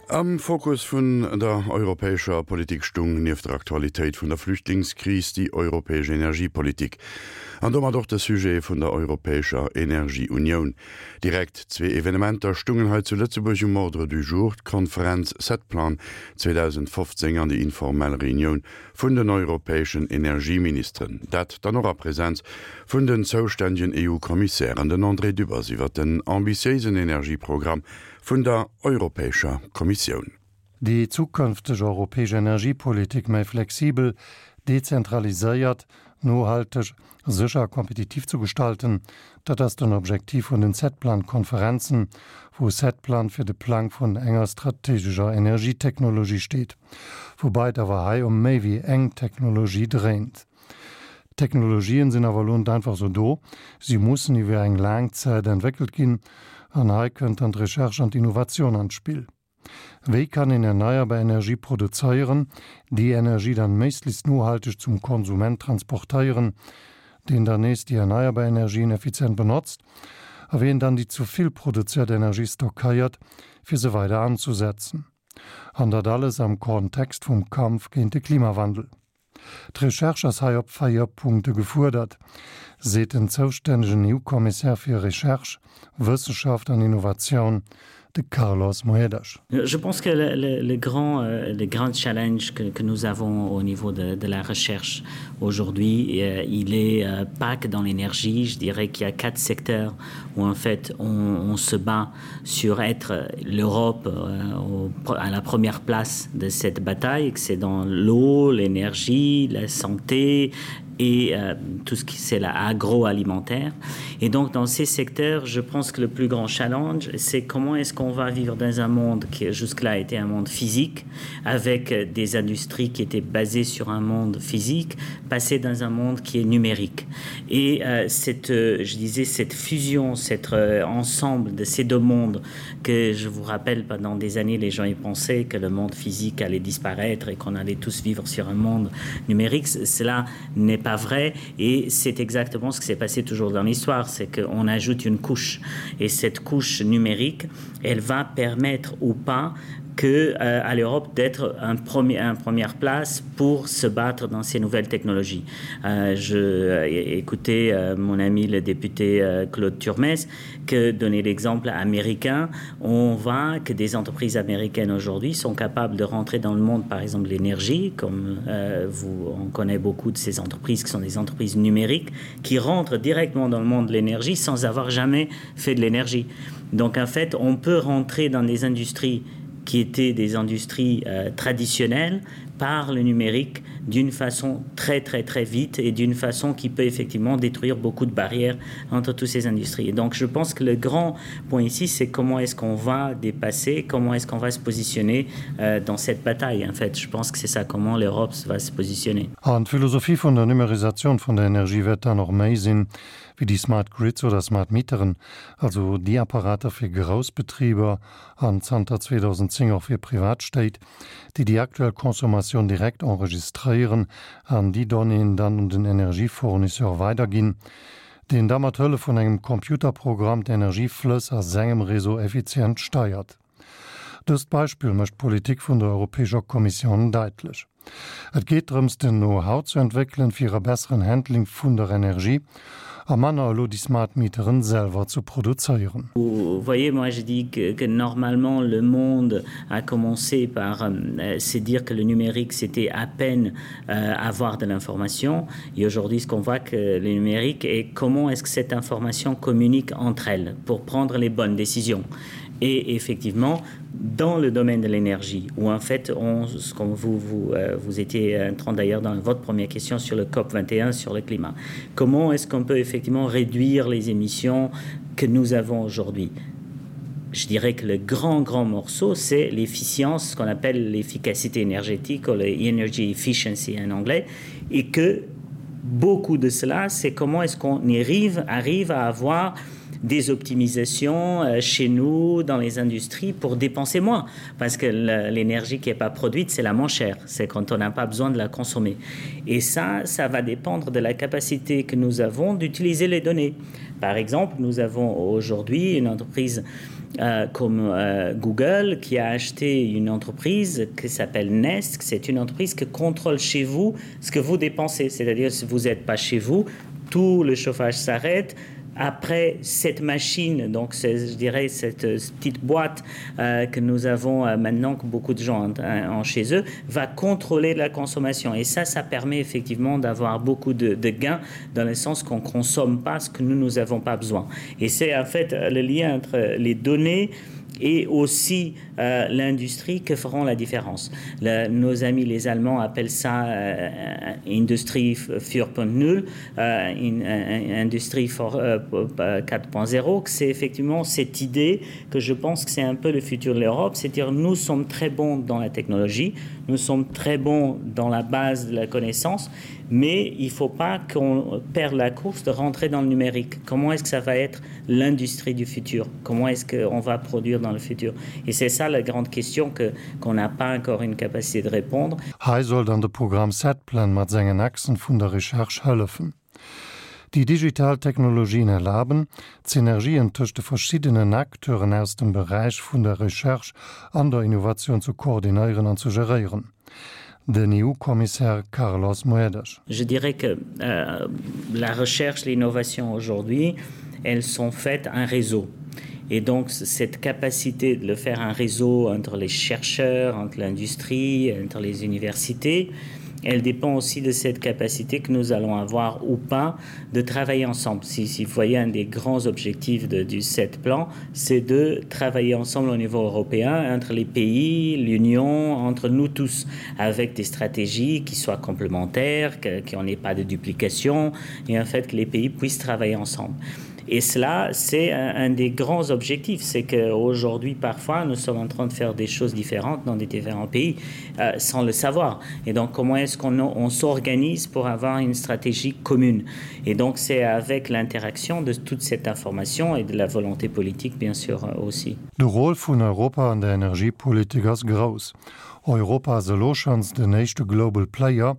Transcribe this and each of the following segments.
Am Fokus vun der europäescher Politik stung nieft der Aktualitéit vun der Flüchtlingskris déi europäesch Energiepolitik an domat och de Sujet vun der europäescher Energieunioun. Direkt zwee Evenementer stungen hei zu Lëtzebuerg um Ordre du jour, d'Konferenz Setplan 2015 an déi informell Reunioun vun den europäeschen Energieministeren, dat dann och a Präsenz vun den zoustännegen EU-Kommissären, den André Dübbers iwwer den ambitiéisen Energieprogramm vun der Europäescher Kommissioun. Déi zukënfteg europäesch Energiepolitik méi flexibel, dezentraliséiert, nohalteg, sécher a kompetitiv zu gestalten, dat ass den Objektiv vun den Setplan-Konferenzen, wou Setplan fir de Plang vun enger strategescher Energietechnologie steet, woubai et awer hei ëm méi wéi eng Technologie dréint. D'Technologien sinn awer elo net einfach sou do, si mussen iwwer eng laang Zäit entwéckelt ginn an hei kënnt dann d'Recherche an d'Innovation an d'Spill. Wéi kann een erneierbar Energie produzéieren, déi Energie dann méiglechst nohalteg zum Konsument transportéieren, deen dann nees déi erneierbar Energien effizient benotzt, a wéi een dann déi zu vill produzéiert Energie stockéiert, fir se weider anzusetzen? An dat alles am Kontext vum Kampf géint de Klimawandel. D'Recherche ass hei op 4 Punkte gefuerdert, seet den zoustännegen EU-Kommissär fir Recherche, Wëssenschaft an Innovatioun, de Carlos Moedas. Je pense que le, le, le, grand, euh, le grand challenge que, que nous avons au niveau de, de la recherche aujourd'hui, euh, il est euh, pas que dans l'énergie, je dirais qu'il y a quatre secteurs où en fait on, on se bat sur être l'Europe euh, à la première place de cette bataille, que c'est dans l'eau, l'énergie, la santé et euh, tout ce qui c'est l'agroalimentaire. Et donc dans ces secteurs, je pense que le plus grand challenge, c'est comment est-ce qu'on va vivre dans un monde qui jusque-là était un monde physique, avec des industries qui étaient basées sur un monde physique, passer dans un monde qui est numérique. Et euh, cette, euh, je disais, cette fusion, cet euh, ensemble de ces deux mondes que je vous rappelle pendant des années, les gens y pensaient que le monde physique allait disparaître et qu'on allait tous vivre sur un monde numérique. Cela n'est pas vrai et c'est exactement ce qui s'est passé toujours dans l'histoire, c'est qu'on ajoute une couche et cette couche numérique, elle va permettre ou pas que euh, à l'Europe d'être un premier en première place pour se battre dans ces nouvelles technologies. Euh, je euh, écoutais euh, mon ami le député euh, Claude Turmes que donner l'exemple américain, on voit que des entreprises américaines aujourd'hui sont capables de rentrer dans le monde par exemple l'énergie comme euh, vous on connaît beaucoup de ces entreprises qui sont des entreprises numériques qui rentrent directement dans le monde de l'énergie sans avoir jamais fait de l'énergie. Donc en fait on peut rentrer dans des industries qui étaient des industries euh, traditionnelles par le numérique d'une façon très très très vite et d'une façon qui peut effectivement détruire beaucoup de barrières entre toutes ces industries. Et donc je pense que le grand point ici c'est comment est-ce qu'on va dépasser, comment est-ce qu'on va se positionner euh, dans cette bataille en fait. Je pense que c'est ça comment l'Europe va se positionner. An d'Philosophie vun der Numerisatioun vun der Energie wäert dann och méi sinn, wéi déi Smart Grids oder Smart Meteren, also déi Apparater fir grouss Betriber an zanter 2010 och fir privat Stéit, déi déi aktuell Consommatioun direkt enregistréieren an déi Donnéeën dann un den Energiefournisseur weiderginn, deen da mat Hëllef vun engem Computerprogramm d'Energieflëss a sengem Réseau effizient steiert. Dëst Beispill mécht d'Politik vun der Europäescher Kommissioun daitlech. Et geet drëms, den Know-how ze entwéckelen, fir e besseren Handling vun der Energie a manner elo déi Smart Meteren selwer ze produzéieren. Vous voyez, moi je dis que, que normalement le monde a commencé par euh, se dire que le numérique c'était à peine euh, avoir de l'information et aujourd'hui ce qu'on voit que le numérique est comment est-ce que cette information communique entre elles pour prendre les bonnes décisions. Et effectivement, dans le domaine de l'énergie où en fait on ce qu'on vous vous euh, vous étiez en train d'ailleurs dans votre première question sur le COP 21 sur le climat comment est-ce qu'on peut effectivement réduire les émissions que nous avons aujourd'hui je dirais que le grand grand morceau c'est l'efficience ce qu'on appelle l'efficacité énergétique ou l'energy efficiency en anglais et que beaucoup de cela c'est comment est-ce qu'on arrive arrive à avoir des optimisations euh, chez nous dans les industries pour dépenser moins parce que l'énergie qui n'est pas produite c'est la moins chère c'est quand on n'a pas besoin de la consommer et ça ça va dépendre de la capacité que nous avons d'utiliser les données par exemple nous avons aujourd'hui une entreprise qui. euh, comme euh, Google qui a acheté une entreprise qui s'appelle Nest, c'est une entreprise qui contrôle chez vous ce que vous dépensez, c'est-à-dire si vous n'êtes pas chez vous, tout le chauffage s'arrête, après cette machine donc je dirais cette euh, petite boîte euh, que nous avons euh, maintenant que beaucoup de gens en, en chez eux va contrôler la consommation et ça ça permet effectivement d'avoir beaucoup de, de gains dans le sens qu'on consomme pas ce que nous nous avons pas besoin et c'est en fait le lien entre les données et et aussi euh, l'industrie que feront la différence. Le, nos amis les Allemands appellent ça euh, industrie 4.0 euh, in, euh, industrie 4.0 euh, c'est effectivement cette idée que je pense que c'est un peu le futur de l'Europe, c'est-à-dire nous sommes très bons dans la technologie, nous sommes très bons dans la base de la connaissance, mais il ne faut pas qu'on perde la course de rentrer dans le numérique. Comment est-ce que ça va être l'industrie du futur? Comment est-ce qu'on va produire dans le futur? Et c'est ça la grande question que qu'on n'a pas encore une capacité de répondre. Hei soll dann de Programm Setplan mat sengen Achsen vun der Recherche hëllefen. Déi digital Technologien erlaben, d'Synergien tëscht de verschiddenen Acteuren aus dem Beräich vun der Recherche an der Innovatioun ze koordinéieren an ze geréieren. Den EU-Kommissär Carlos Moedas. Je dirais que euh, la recherche, l'innovation aujourd'hui, elles sont faites un réseau. Et donc cette capacité de le faire un réseau entre les chercheurs, entre l'industrie, entre les universités, elle dépend aussi de cette capacité que nous allons avoir ou pas de travailler ensemble. Si, si vous voyez un des grands objectifs de, du set plan, c'est de travailler ensemble au niveau européen, entre les pays, l'Union, entre nous tous, avec des stratégies qui soient complémentaires, qu'il n'y ait pas de duplication, et en fait que les pays puissent travailler ensemble. Et cela, c'est un, un des grands objectifs, c'est qu'aujourd'hui, parfois, nous sommes en train de faire des choses différentes dans des différents pays euh, sans le savoir. Et donc, comment est-ce qu'on on, s'organise pour avoir une stratégie commune Et donc, c'est avec l'interaction de toute cette information et de la volonté politique, bien sûr, euh, aussi. De Rôle vun Europa an der Energiepolitik ass grouss. Europa ass elo schonns den éischte Global Player,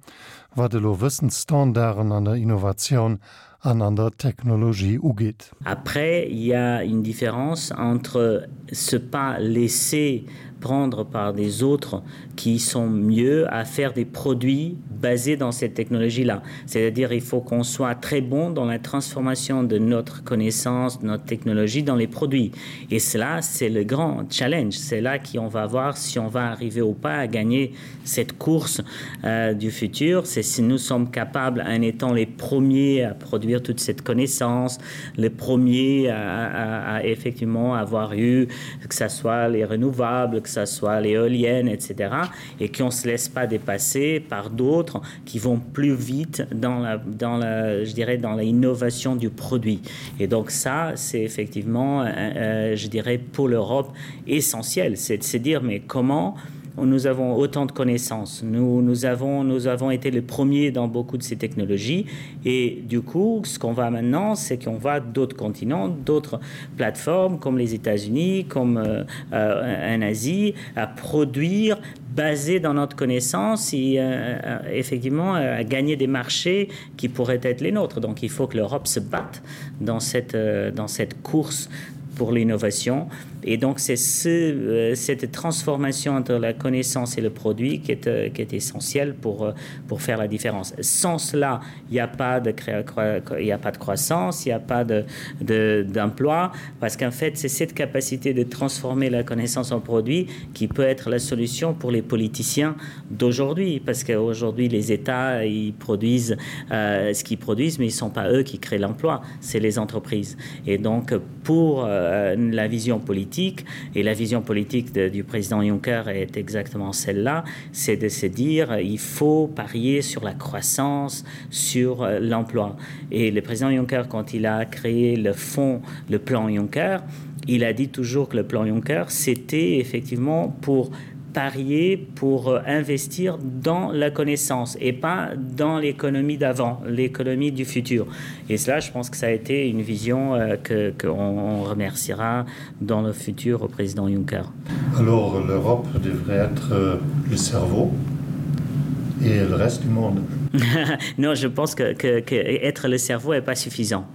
wat elo Wëssensstandarden an der Innovatioun an an der Technologie ugeet. Après, il y a une différence entre se pas laisser prendre par des autres qui sont mieux à faire des produits basés dans cette technologie là. C'est-à-dire il faut qu'on soit très bon dans la transformation de notre connaissance, de notre technologie dans les produits. Et cela c'est le grand challenge, c'est là qu'on va voir si on va arriver ou pas à gagner cette course euh, du futur, c'est si nous sommes capables en étant les premiers à produire toute cette connaissance, les premiers à, à, à effectivement avoir eu que ce soit les renouvelables, que ce soit l'éolienne, etc. et qu'on ne se laisse pas dépasser par d'autres qui vont plus vite dans la, dans la, je dirais dans l'innovation du produit. Et donc ça, c'est effectivement, euh, euh je dirais pour l'Europe essentiel, c'est de se dire mais comment nous avons autant de connaissances. Nous, nous, avons, nous avons été les premiers dans beaucoup de ces technologies et du coup ce qu'on va maintenant c'est qu'on va d'autres continents, d'autres plateformes comme les États-Unis, comme euh, euh, en Asie à produire basé dans notre connaissance et euh, euh effectivement euh, à gagner des marchés qui pourraient être les nôtres. Donc il faut que l'Europe se batte dans cette, euh, dans cette course pour l'innovation. Et donc c'est ce, euh, cette transformation entre la connaissance et le produit qui est, euh, qui est essentielle pour, euh, pour faire la différence. Sans cela, il n'y a, pas de il a pas de croissance, il n'y a pas d'emploi, de, de, parce qu'en fait, c'est cette capacité de transformer la connaissance en produit qui peut être la solution pour les politiciens d'aujourd'hui, parce qu'aujourd'hui, les États ils produisent euh, ce qu'ils produisent, mais ils ne sont pas eux qui créent l'emploi, c'est les entreprises. Et donc pour euh, la vision politique et la vision politique de, du président Juncker est exactement celle-là, c'est de se dire il faut parier sur la croissance, sur euh, l'emploi. Et le président Juncker, quand il a créé le fonds, le plan Juncker, il a dit toujours que le plan Juncker, c'était effectivement pour parier pour euh, investir dans la connaissance et pas dans l'économie d'avant, l'économie du futur. Et cela, je pense que ça a été une vision euh, que qu'on remerciera dans le futur au président Juncker. Alors l'Europe devrait être euh, le cerveau et le reste du monde. non, je pense que, que, que être le cerveau n'est pas suffisant.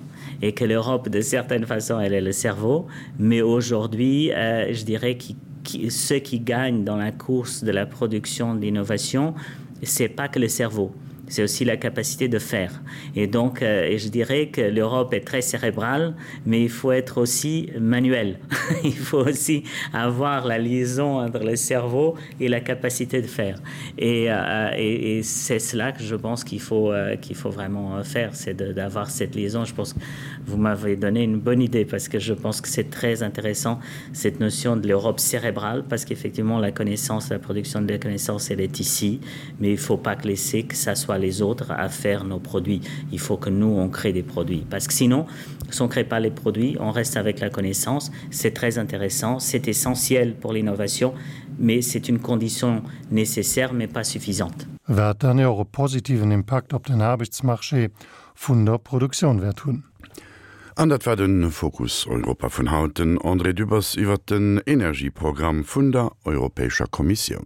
Et que l'Europe, de certaine façon, elle est le cerveau, mais aujourd'hui, euh, je dirais que qui, ceux qui gagnent dans la course de la production d'innovation, c'est pas que le cerveau c'est aussi la capacité de faire. Et donc euh, et je dirais que l'Europe est très cérébrale, mais il faut être aussi manuel. il faut aussi avoir la liaison entre le cerveau et la capacité de faire. Et, euh, et, et c'est cela que je pense qu'il faut, euh, qu'il faut vraiment euh, faire, c'est d'avoir cette liaison. Je pense que vous m'avez donné une bonne idée parce que je pense que c'est très intéressant cette notion de l'Europe cérébrale parce qu'effectivement la connaissance, la production de la connaissance, elle est ici, mais il ne faut pas que laisser que ça soit les autres à faire nos produits. Il faut que nous, on crée des produits. Parce que sinon, si on ne crée pas les produits, on reste avec la connaissance. C'est très intéressant, c'est essentiel pour l'innovation, mais c'est une condition nécessaire, mais pas suffisante. Wat dann jo och e positiven Impakt op den Aarbechtsmarché vun der Produktioun wäert hunn. An dat war de Fokus Europa vun haut. Den André Dübbers iwwert den Energieprogramm vun der Europäescher Kommissioun.